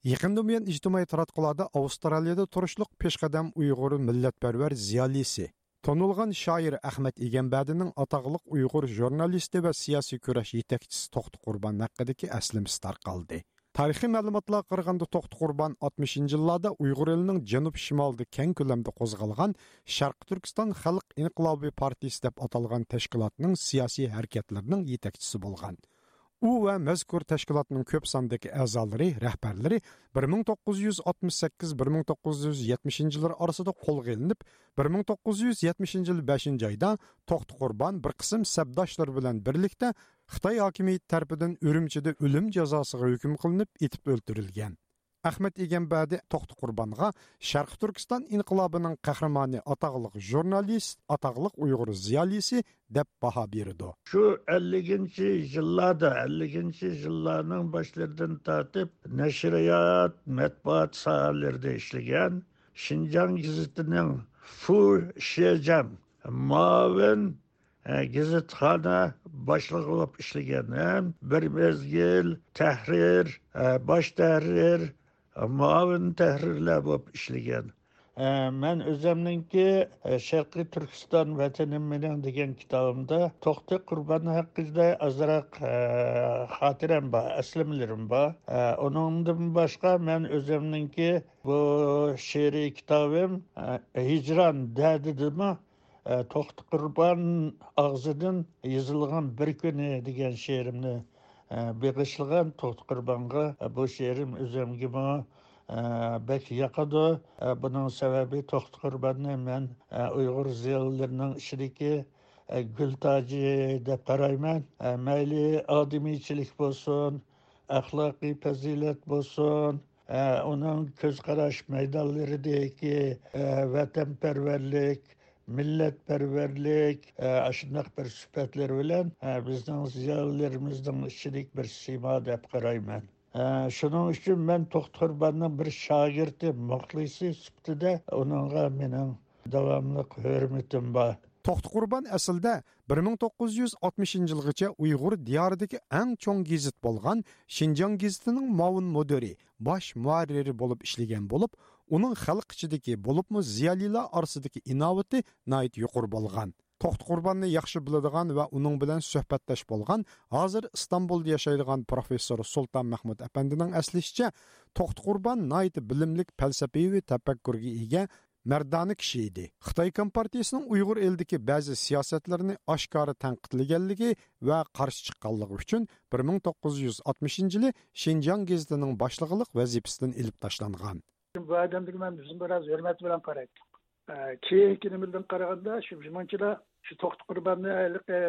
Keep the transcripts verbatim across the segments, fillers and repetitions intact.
يېقىندىن بۇيان ئىجتىمائىي تاراتقۇلاردا ئاۋسترالىيىدا تۇرۇشلۇق پېشقەدەم ئۇيغۇر مىللەتپەرۋەر زىيالىيسى، تونۇلغان شائىر ئەخمەت ئىگەمبەردىنىڭ ئاتاقلىق ئۇيغۇر ژۇرنالىستى ۋە سىياسىي كۈرەش يېتەكچىسى توختى قۇربان ھەققىدىكى ئەسلىمىسى تارقالدى. تارىخىي مەلۇماتلارغا قارىغاندا، توختى قۇربان ئاتمىشىنچى يىللاردا ئۇيغۇر ئېلىنىڭ جەنۇب شىمالىدا كەڭ كۆلەمدە قوزغالغان شەرقىي تۈركىستان خەلق ئىنقىلابى پارتىيىسى دەپ ئاتالغان تەشكىلاتنىڭ سىياسىي ھەرىكەتلىرىنىڭ يېتەكچىسى بولغان. ئۇ ۋە مەزكۇر تەشكىلاتنىڭ كۆپ ساندىكى ئەزالىرى، رەھبەرلىرى بىر مىڭ توققۇز يۈز ئاتمىش سەككىز، بىر مىڭ توققۇز يۈز يەتمىشىنچى يىللار ئارىسىدا قولغا ئېلىنىپ، بىر مىڭ توققۇز يۈز يەتمىشىنچى يىل بەشىنچى ئايدا توختى قۇربان بىر قىسىم سەپداشلىرى بىلەن بىرلىكتە خىتاي ھاكىمىيىتى تەرىپىدىن ئۈرۈمچىدە ئۆلۈم جازاسىغا ھۆكۈم قىلىنىپ، ئېتىپ ئۆلتۈرۈلگەن. ئەخمەت ئىگەمبەردى توختى قۇربانغا شەرقىي تۈركىستان ئىنقىلابىنىڭ قەھرىمانى، ئاتاقلىق ژۇرنالىست، ئاتاقلىق ئۇيغۇر زىيالىيسى دەپ باھا بېرىدۇ. شۇ ئەللىكىنچى يىللاردا، ئەللىكىنچى يىللارنىڭ باشلىرىدىن تارتىپ نەشرىيات، مەتبۇئات ساھەلىرىدە ئىشلىگەن، شىنجاڭ گېزىتىنىڭ فۇ شېجەم مۇئاۋىن، ئە، گېزىتخانا باشلىقى بولۇپ ئىشلىگەن ھەم بىر مەزگىل تەھرىر، ئە، باش تەھرىر، ئە، مۇئاۋىن تەھرىرلەر بولۇپ ئىشلىگەن. ئە، مەن ئۆزۈمنىڭكى، ئە، شەرقىي تۈركىستان ۋەتىنىم مېنىڭ دېگەن كىتابىمدا توختى قۇربان ھەققىدە ئازراق، ئە، خاتىرەم بار، ئەسلىمىلىرىم بار. ئە، ئۇنىڭدىن باشقا مەن ئۆزۈمنىڭكى بۇ شېئىرىي كىتابىم، ئە، ھىجران دەردىدىمۇ، ئە، توختى قۇربان ئاغزىدىن يېزىلغان بىر كۈنى دېگەن شېئىرىمنى، ئە، بېغىشلىغان توختى قۇربانغا. ئە، بۇ شېئىرىم ئۆزۈمگىمۇ، ئە، بەك ياقىدۇ. ئە، بۇنىڭ سەۋەبى توختى قۇرباننى مەن، ئە، ئۇيغۇر زىيالىيلىرىنىڭ ئىچىدىكى، ئە، گۈل تاجى دەپ قارايمەن. ئە، مەيلى ئادىمىيچىلىك بولسۇن، ئەخلاقىي پەزىلەت بولسۇن، ئە، ئۇنىڭ كۆز قاراش مەيدانلىرىدىكى، ئە، ۋەتەنپەرۋەرلىك، مىللەتپەرۋەرلىك، ئە، ئاشۇنداق بىر سۈپەتلىرى بىلەن، ئە، بىزنىڭ زىيالىيلىرىمىزنىڭ ئىچىدىكى بىر سىيما دەپ قارايمەن. ئە، شۇنىڭ ئۈچۈن مەن توختى قۇرباننىڭ بىر شاگىرتى، مۇخلىسى سۈپىتىدە ئۇنىڭغا مېنىڭ داۋاملىق ھۆرمىتىم بار. توختى قۇربان ئەسلىدە بىر مىڭ توققۇز يۈز ئاتمىشىنچى يىلغىچە ئۇيغۇر دىيارىدىكى ئەڭ چوڭ گېزىت بولغان شىنجاڭ گېزىتىنىڭ مۇئاۋىن مۇدىرى، باش مۇھەررىرى بولۇپ ئىشلىگەن بولۇپ، ئۇنىڭ خەلق ئىچىدىكى، بولۇپمۇ زىيالىيلار ئارىسىدىكى ئىناۋىتى ناھايىتى يۇقىرى بولغان. توختى قۇرباننى ياخشى بىلىدىغان ۋە ئۇنىڭ بىلەن سۆھبەتداش بولغان، ھازىر ئىستانبۇلدا ياشايدىغان پروفېسسور سۇلتان مەھمۇت ئەپەندىنىڭ ئەسلىشىچە، توختى قۇربان ناھايىتى بىلىملىك، پەلسەپىۋى تەپەككۇرغا ئىگە، مەردانە كىشى ئىدى. خىتاي كومپارتىيىسىنىڭ ئۇيغۇر ئېلىدىكى بەزى سىياسەتلىرىنى ئاشكارا تەنقىدلىگەنلىكى ۋە قارشى چىققانلىقى ئۈچۈن بىر مىڭ توققۇز يۈز ئاتمىشىنچى يىلى شىنجاڭ گېزىتىنىڭ باشلىقلىق ۋەزىپىسىدىن ئېلىپ تاشلانغان. بۇ ئادەمگە مەن بىزمۇ بىراز ھۆرمەت بىلەن قارايتتۇق. ئە، كېيىنكى نېمىدىن قارىغاندا، شۇ مۇنچىلا شۇ توختى قۇرباننى ھېلىقى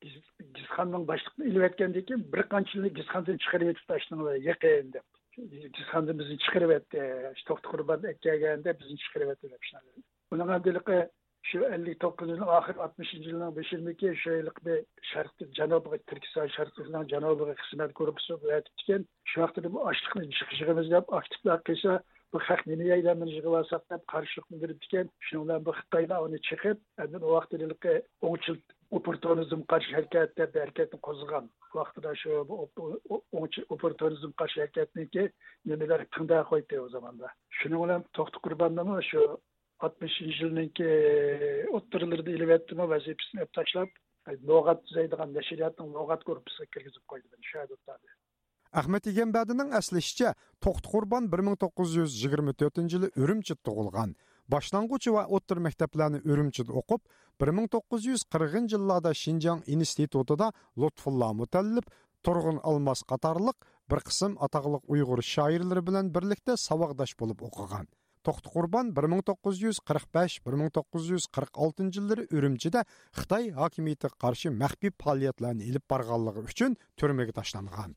گېز-، گېزىتخانىنىڭ باشلىقىنى ئېلىۋەتكەندىن كېيىن، بىر قانچىلىرىنى گېزىتخانىدىن چىقىرىۋېتىپتۇ، شۇنىڭ بىلەن يېقىن دەپ. گېزىتخانىدىن بىزنى چىقىرىۋەتتى. شۇ توختى قۇربان ئەكەلگەندە بىزنى چىقىرىۋەتتى دەپ شۇنداق. ئۇنىڭ ئەمدى ھېلىقى شۇ ئەللىك توققۇزىنچى يىلنىڭ ئاخىرى، ئاتمىشىنچى يىلنىڭ بېشىدىكى شۇ ھېلىقى بىر شەرقىي جەنۇبىغا، تۈركىستان شەرقىي جەنۇبىغا خىزمەت گۇرۇپپىسى ئەۋەتىپتىكەن. شۇ ۋاقىتتا بۇ ئاشلىقنى يىغىمىز دەپ ئاكتىپلار قىلسا، بۇ خەق نېمە يەيدۇ، بۇنى يىغىۋالساق دەپ قارشىلىقنى بىلدۈرۈپتىكەن. شۇنىڭ بىلەن بۇ خىتايلار ئۇنى چېقىپ، ئاندىن ئۇ ۋاقىتتا ھېلىقى ئوڭچىل ئوپپورتۇنىزمغا قارشى ھەرىكەت دەپ بىر ھەرىكەتنى قوزغىغان. ۋاقتىدا شۇ بۇ ئوپ-، ئو-، ئوڭچىل ئوپپورتۇنىزمغا قارشى ھەرىكەتنىڭكى نېمىلەر تىڭدا قويدى ئۇ زاماندا. شۇنىڭ بىلەن توختى قۇرباننىمۇ شۇ ئاتمىشىنچى يىلنىڭكى ئوتتۇرىلىرىدا ئېلىۋەتتىمۇ، ۋەزىپىسىنى ئېلىپ تاشلاپ، لۇغەت تۈزەيدىغان نەشرىياتنىڭ لۇغەت گۇرۇپپىسىغا كىرگۈزۈپ قويدى مېنى، شۇ يەردە ئولتۇردى. ئەخمەت ئىگەمبەردىنىڭ ئەسلىشىچە، توختى قۇربان بىر مىڭ توققۇز يۈز يىگىرمە تۆتىنچى يىلى ئۈرۈمچىدە تۇغۇلغان. باشلانغۇچ ۋە ئوتتۇرا مەكتەپلەرنى ئۈرۈمچىدە ئوقۇپ، بىر مىڭ توققۇز يۈز قىرىقىنچى يىللاردا شىنجاڭ ئىنستىتۇتىدا لۇتپۇللا مۇتەللىپ، تۇرغۇن ئالماس قاتارلىق بىر قىسىم ئاتاقلىق ئۇيغۇر شائىرلىرى بىلەن بىرلىكتە ساۋاقداش بولۇپ ئوقۇغان. توختى قۇربان بىر مىڭ توققۇز يۈز قىرىق بەش، بىر مىڭ توققۇز يۈز قىرىق ئالتىنچى يىللىرى ئۈرۈمچىدە خىتاي ھاكىمىيىتىگە قارشى مەخپىي پائالىيەتلەرنى ئېلىپ بارغانلىقى ئۈچۈن تۈرمىگە تاشلانغان.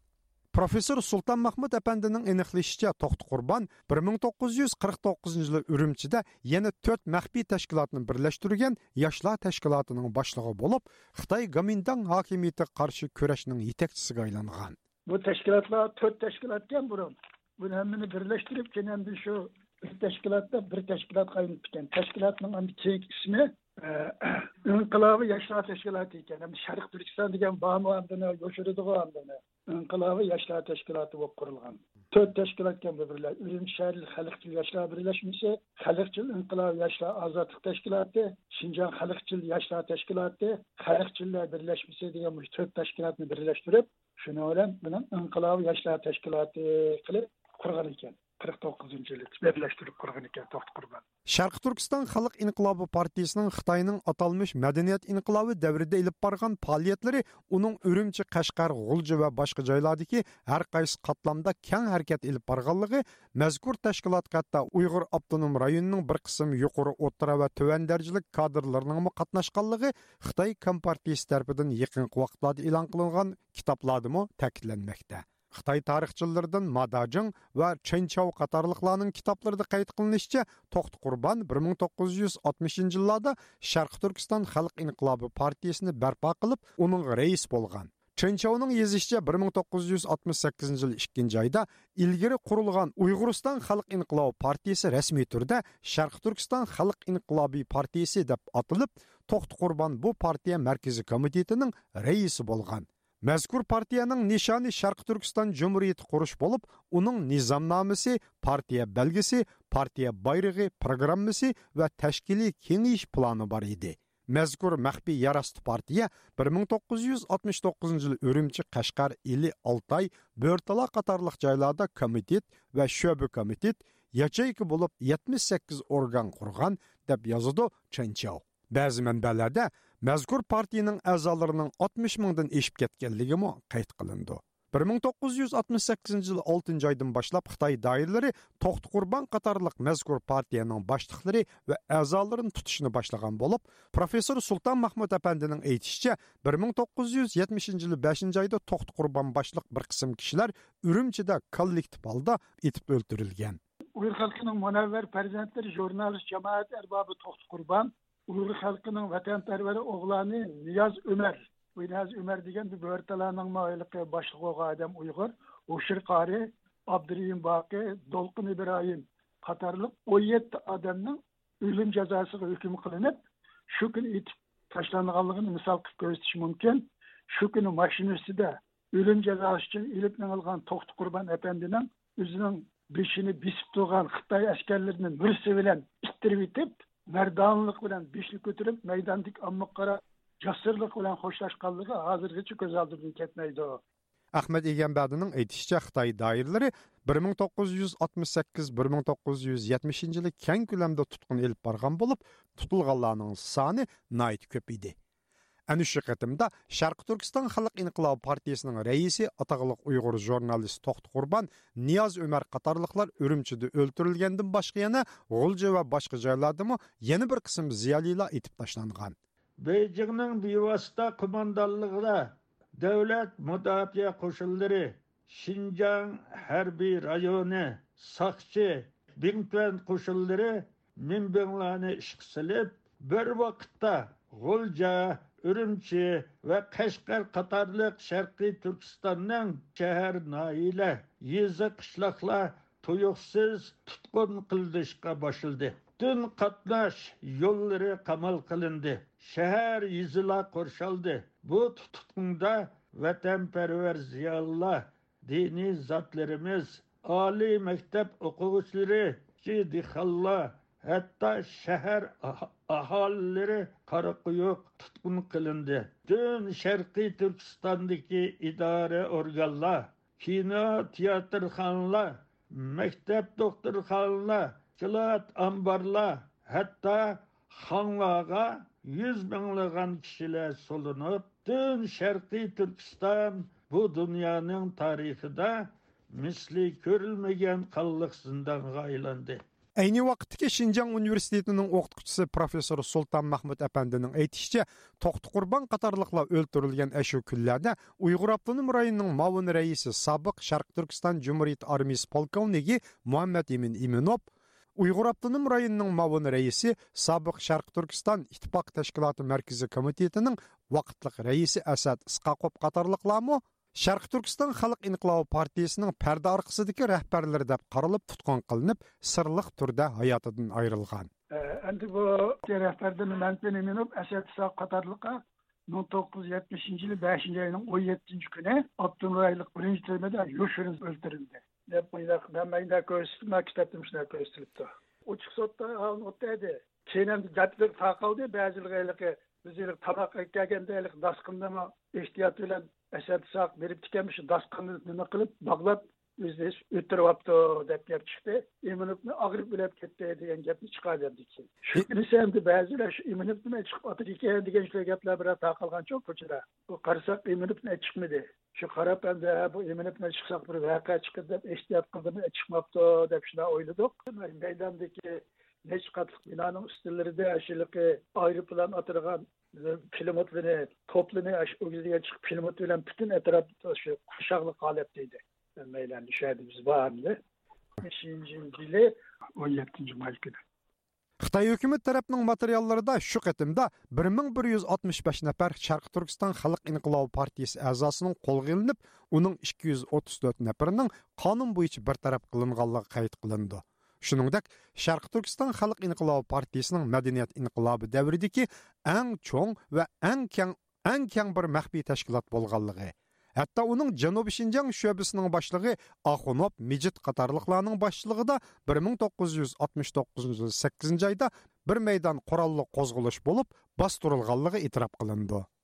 پروفېسسور سۇلتان مەھمۇت ئەپەندىنىڭ ئېنىقلىشىچە، توختى قۇربان بىر مىڭ توققۇز يۈز قىرىق توققۇزىنچى يىلى ئۈرۈمچىدە يەنە تۆت مەخپىي تەشكىلاتنى بىرلەشتۈرگەن ياشلار تەشكىلاتىنىڭ باشلىقى بولۇپ، خىتاي گومىنداڭ ھاكىمىيىتىگە قارشى كۈرەشنىڭ يېتەكچىسىگە ئايلانغان. بۇ تەشكىلاتلار تۆت تەشكىلاتكەن بۇرۇن. بۇنى ھەممىنى بىرلەشتۈرۈپ، كېيىن ئەمدى شۇ بىر تەشكىلاتتا بىر تەشكىلاتقا ئايلىنىپتىكەن. تەشكىلاتنىڭ ئەمدى كېيىنكى ئىسمى، ئە، ئىنقىلابىي ياشلار تەشكىلاتى ئىكەن. ئەمدى شەرقىي تۈركىستان دېگەن بارمۇ ئاندىن يوشۇرىدىغۇ ئاندىن. ئىنقىلابىي ياشلار تەشكىلاتى بولۇپ قۇرۇلغان. تۆت تەشكىلاتكەن بۇ بىرلەش، ئۈرۈمچى شەھەرلىك خەلقچىل ياشلار بىرلەشمىسى، خەلقچىل ئىنقىلابىي ياشلار ئازادلىق تەشكىلاتى، شىنجاڭ خەلقچىل ياشلار تەشكىلاتى، خەلقچىللەر بىرلەشمىسى دېگەن مۇشۇ تۆت تەشكىلاتنى بىرلەشتۈرۈپ، شۇنىڭ بىلەن بۇنىڭ ئىنقىلابىي ياشلار تەشكىلاتى قىلىپ قۇرغان ئىكەن. قىرىق توققۇزىنچى يىلى بىرلەشتۈرۈپ قۇرغان ئىكەن توختى قۇربان. شەرقىي تۈركىستان خەلق ئىنقىلابى پارتىيىسىنىڭ خىتاينىڭ ئاتالمىش مەدەنىيەت ئىنقىلابى دەۋرىدە ئېلىپ بارغان پائالىيەتلىرى ئۇنىڭ ئۈرۈمچى، قەشقەر، غۇلجا ۋە باشقا جايلاردىكى ھەر قايسى قاتلامدا كەڭ ھەرىكەت ئېلىپ بارغانلىقى، مەزكۇر تەشكىلاتقا ھەتتا ئۇيغۇر ئاپتونوم رايونىنىڭ بىر قىسىم يۇقىرى، ئوتتۇرا ۋە تۆۋەن دەرىجىلىك كادىرلىرىنىڭمۇ قاتناشقانلىقى خىتاي كومپارتىيىسى تەرىپىدىن يېقىنقى ۋاقىتلاردا ئېلان قىلىنغان كىتابلاردىمۇ تەكىتلەنمەكتە. خىتاي تارىخچىلىرىدىن ما داجىڭ ۋا چېن چاۋ قاتارلىقلارنىڭ كىتابلىرىدا قەيت قىلىنىشىچە، توختى قۇربان بىر مىڭ توققۇز يۈز ئاتمىشىنچى يىللاردا شەرقىي تۈركىستان خەلق ئىنقىلابى پارتىيىسىنى بەرپا قىلىپ، ئۇنىڭغا رەئىس بولغان. چېن چاۋنىڭ يېزىشىچە، بىر مىڭ توققۇز يۈز ئاتمىش سەككىزىنچى يىل ئىككىنچى ئايدا ئىلگىرى قۇرۇلغان ئۇيغۇرىستان خەلق ئىنقىلابى پارتىيىسى رەسمىي تۈردە شەرقىي تۈركىستان خەلق ئىنقىلابى پارتىيىسى دەپ ئاتىلىپ، توختى قۇربان بۇ پارتىيە مەركىزىي كومىتېتىنىڭ رەئىسى بولغان. مەزكۇر پارتىيەنىڭ نىشانى شەرقىي تۈركىستان جۇمھۇرىيىتى قۇرۇش بولۇپ، ئۇنىڭ نىزامنامىسى، پارتىيە بەلگىسى، پارتىيە بايرىقى، پروگراممىسى ۋە تەشكىلىي كېڭىيىش پىلانى بار ئىدى. مەزكۇر مەخپىي يەر ئاستى پارتىيە بىر مىڭ توققۇز يۈز ئاتمىش توققۇزىنچى يىل ئۈرۈمچى، قەشقەر، ئىلى، ئالتاي، بۆرتالا قاتارلىق جايلاردا كومىتېت ۋە شۆبە كومىتېت، ياچېيكا بولۇپ يەتمىش سەككىز ئورگان قۇرغان، دەپ يازىدۇ چېن چاۋ. بەزى مەنبەلەردە مەزكۇر پارتىيىنىڭ ئەزالىرىنىڭ ئاتمىش مىڭدىن ئېشىپ كەتكەنلىكىمۇ قەيت قىلىنىدۇ. بىر مىڭ توققۇز يۈز ئاتمىش سەككىزىنچى يىل ئالتىنچى ئايدىن باشلاپ خىتاي دائىرىلىرى توختى قۇربان قاتارلىق مەزكۇر پارتىيەنىڭ باشلىقلىرى ۋە ئەزالىرىنى تۇتۇشنى باشلىغان بولۇپ، پروفېسسور سۇلتان مەھمۇت ئەپەندىنىڭ ئېيتىشىچە، بىر مىڭ توققۇز يۈز يەتمىشىنچى يىلى بەشىنچى ئايدا توختى قۇربان باشلىق بىر قىسىم كىشىلەر ئۈرۈمچىدە كوللېكتىپ ھالدا ئېتىپ ئۆلتۈرۈلگەن. ئۇيغۇر خەلقىنىڭ مۇنەۋۋەر پەرزەنتلىرى، ژۇرنالىست، جامائەت ئەربابى توختى قۇربان، ئۇيغۇر خەلقىنىڭ ۋەتەنپەرۋەر ئوغلانى نىياز ئۆمەر، بۇ نىياز ئۆمەر دېگەن بۇ بۆرتالانىڭمۇ ھېلىقى باشلىقى بولغان ئادەم ئۇيغۇر، ھوشۇر قارى، ئابدۇرېھىم باقى، دولقۇن ئىبراھىم قاتارلىق ئون يەتتە ئادەمنىڭ ئۆلۈم جازاسىغا ھۆكۈم قىلىنىپ، شۇ كۈنى ئېتىپ تاشلانغانلىقىنى مىسال قىلىپ كۆرسىتىش مۇمكىن. شۇ كۈنى ماشىنا ئۈستىدە ئۆلۈم جازاسى ئۈچۈن ئېلىپ مېڭىلغان توختى قۇربان ئەپەندىنىڭ ئۆزىنىڭ بېشىنى بېسىپ تۇرغان خىتاي ئەسكەرلىرىنى مۈرىسى بىلەن ئىتتىرىۋېتىپ، مەردانىلىق بىلەن بېشىنى كۆتۈرۈپ، مەيداندىكى ئاممىغا قاراپ جاسۇرلۇق بىلەن خوشلاشقانلىقى ھازىرغىچە كۆز ئالدىمدىن كەتمەيدۇ. ئەخمەت ئىگەمبەردىنىڭ ئېيتىشىچە، خىتاي دائىرىلىرى بىر مىڭ توققۇز يۈز ئاتمىش سەككىز، بىر مىڭ توققۇز يۈز يەتمىشىنچى يىلى كەڭ كۆلەمدە تۇتقۇن ئېلىپ بارغان بولۇپ، تۇتۇلغانلارنىڭ سانى ناھايىتى كۆپ ئىدى. ئەنە شۇ قېتىمدا شەرقىي تۈركىستان خەلق ئىنقىلابى پارتىيىسىنىڭ رەئىسى، ئاتاقلىق ئۇيغۇر ژۇرنالىست توختى قۇربان، نىياز ئۆمەر قاتارلىقلار ئۈرۈمچىدە ئۆلتۈرۈلگەندىن باشقا، يەنە غۇلجا ۋە باشقا جايلاردىمۇ يەنە بىر قىسىم زىيالىيلار ئېتىپ تاشلانغان. بېيجىڭنىڭ بىۋاسىتە قوماندانلىقىدا دۆلەت مۇداپىئە قوشۇنلىرى، شىنجاڭ ھەربىي رايونى، ساقچى، بىڭتۈەن قوشۇنلىرى مىنبىڭلارنى ئىشقا سېلىپ، بىر ۋاقىتتا غۇلجا، ئۈرۈمچى ۋە قەشقەر قاتارلىق شەرقىي تۈركىستاننىڭ شەھەر، ناھىيەلەر، يېزا، قىشلاقلار تۇيۇقسىز تۇتقۇن قىلىنىشقا باشلىدى. پۈتۈن قاتناش يوللىرى قامال قىلىندى. شەھەر، يېزىلار قورشالدى. بۇ تۇتقۇندا ۋەتەنپەرۋەر زىيالىيلار، دىنىي زاتلىرىمىز، ئالىي مەكتەپ ئوقۇغۇچىلىرى، كىچىك دېھقانلار، ھەتتا شەھەر ئاھ-، ئاھالىلىرى قارا قويۇق تۇتقۇن قىلىندى. پۈتۈن شەرقىي تۈركىستاندىكى ئىدارە ئورگانلار، كىنو، تىياتىرخانىلار، مەكتەپ، دوختۇرخانىلار، سكلات، ئامبارلار، ھەتتا خاڭلارغا يۈز مىڭلىغان كىشىلەر سولىنىپ، پۈتۈن شەرقىي تۈركىستان بۇ دۇنيانىڭ تارىخىدا مىسلى كۆرۈلمىگەن قانلىق زىندانغا ئايلاندى. ئەينى ۋاقىتتىكى شىنجاڭ ئۇنىۋېرسىتېتىنىڭ ئوقۇتقۇچىسى پروفېسسور سۇلتان مەھمۇت ئەپەندىنىڭ ئېيتىشىچە، توختى قۇربان قاتارلىقلار ئۆلتۈرۈلگەن ئەشۇ كۈنلەردە ئۇيغۇر ئاپتونوم رايونىنىڭ مۇئاۋىن رەئىسى، سابىق شەرقىي تۈركىستان جۇمھۇرىيىتى ئارمىيىسى پولكوۋنىكى مۇھەممەت ئىمىن ئىمىنوف، ئۇيغۇر ئاپتونوم رايونىنىڭ مۇئاۋىن رەئىسى، سابىق شەرقىي تۈركىستان ئىتتىپاق تەشكىلاتى مەركىزىي كومىتېتىنىڭ ۋاقىتلىق رەئىسى ئەسەت ئىسقاقوف قاتارلىقلارمۇ شەرقىي تۈركىستان خەلق ئىنقىلابى پارتىيىسىنىڭ پەردە ئارقىسىدىكى رەھبەرلىرى دەپ قارىلىپ تۇتقۇن قىلىنىپ، سىرلىق تۈردە ھاياتىدىن ئايرىلغان. ئەمدى بۇ رەھبەردىن مەمتىن ئىمىنوف، ئەسەت ئىسھاق قاتارلىقلار مىڭ توققۇز يۈز يەتمىشىنچى يىلى بەشىنچى ئاينىڭ ئون يەتتىنچى كۈنى ئاپتونوم رايونلۇق بىرىنچى تۈرمىدە يوشۇرۇن ئۆلتۈرۈلدى، دەپ مۇنداق، مەن مۇنداق كۆرسىتىپ، مانا كىتابتا مۇشۇنداق كۆرسىتىلىپتۇ. ئوچۇق سوتتا ئالىنىۋاتىدۇ. كېيىن ئەمدى گەپلىرى تارقالدى. بەزىلىرى ھېلىقى بىز ھېلىقى تاماق ئەكەلگەندە ھېلىقى داسقىننىمۇ ئېھتىيات بىلەن ئەسەرتساق بېرىپتىكەنمىش، داسقىننى نېمە قىلىپ باغلاپ ئۆزىنى ئۆلتۈرۈۋاپتۇ دەپ گەپ چىقتى. ئىمىنوفنى ئاغرىپ ئۆلۈپ كەتتى دېگەن گەپنى چىقاردى ئەمدى كېيىن. شۇ كۈنىسى ئەمدى بەزىلەر شۇ ئىمىنوفنىمۇ چىقىپ ئاتىدىكەن دېگەن شۇ گەپلەر بىرەر تارقالغانچۇ كوچىدا. بۇ قارىساق ئىمىنوفنى چىقمىدى. شۇ قاراپ ئەمدى، ھە، بۇ ئىمىنوفنى چىقساق بىر ۋەقە چىقىدۇ دەپ ئېھتىيات قىلدىمۇ، چىقماپتۇ دەپ شۇنداق ئويلىدۇق. مەيداندىكى نەچچە قاتلىق بىنانىڭ ئۈستىلىرىدە ئاشۇلىقى ئايروپىلان ئاتىدىغان پىلىموتلىرىنى، توپلىرىنى ئاشۇ ئۆگزىگە چىقىپ پىلىموت بىلەن پۈتۈن ئەتراپ شۇ قورشاقلىق ھالەتتە ئىدى. مەيدان شۇ يەردە بىز بار ئەمدى. بەشىنچى يىلى ئون يەتتىنچى ماي كۈنى. خىتاي ھۆكۈمەت تەرەپنىڭ ماتېرىياللىرىدا شۇ قېتىمدا بىر مىڭ بىر يۈز ئاتمىش بەش نەپەر شەرقىي تۈركىستان خەلق ئىنقىلابى پارتىيىسى ئەزاسىنىڭ قولغا ئېلىنىپ، ئۇنىڭ ئىككى يۈز ئوتتۇز تۆت نەپىرىنىڭ قانۇن بويىچە بىر تەرەپ قىلىنغانلىقى قەيت قىلىنىدۇ. شۇنىڭدەك، شەرقىي تۈركىستان خەلق ئىنقىلابى پارتىيىسىنىڭ مەدەنىيەت ئىنقىلابى دەۋرىدىكى ئەڭ چوڭ ۋە ئەڭ كەڭ، ئەڭ كەڭ بىر مەخپىي تەشكىلات بولغانلىقى، ھەتتا ئۇنىڭ جەنۇبىي شىنجاڭ شۆبىسىنىڭ باشلىقى ئاخۇنوف مىجىت قاتارلىقلارنىڭ باشچىلىقىدا بىر مىڭ توققۇز يۈز ئاتمىش توققۇزىنچى يىل سەككىزىنچى ئايدا بىر مەيدان قوراللىق قوزغىلىش بولۇپ، باستۇرۇلغانلىقى ئېتىراپ قىلىنىدۇ.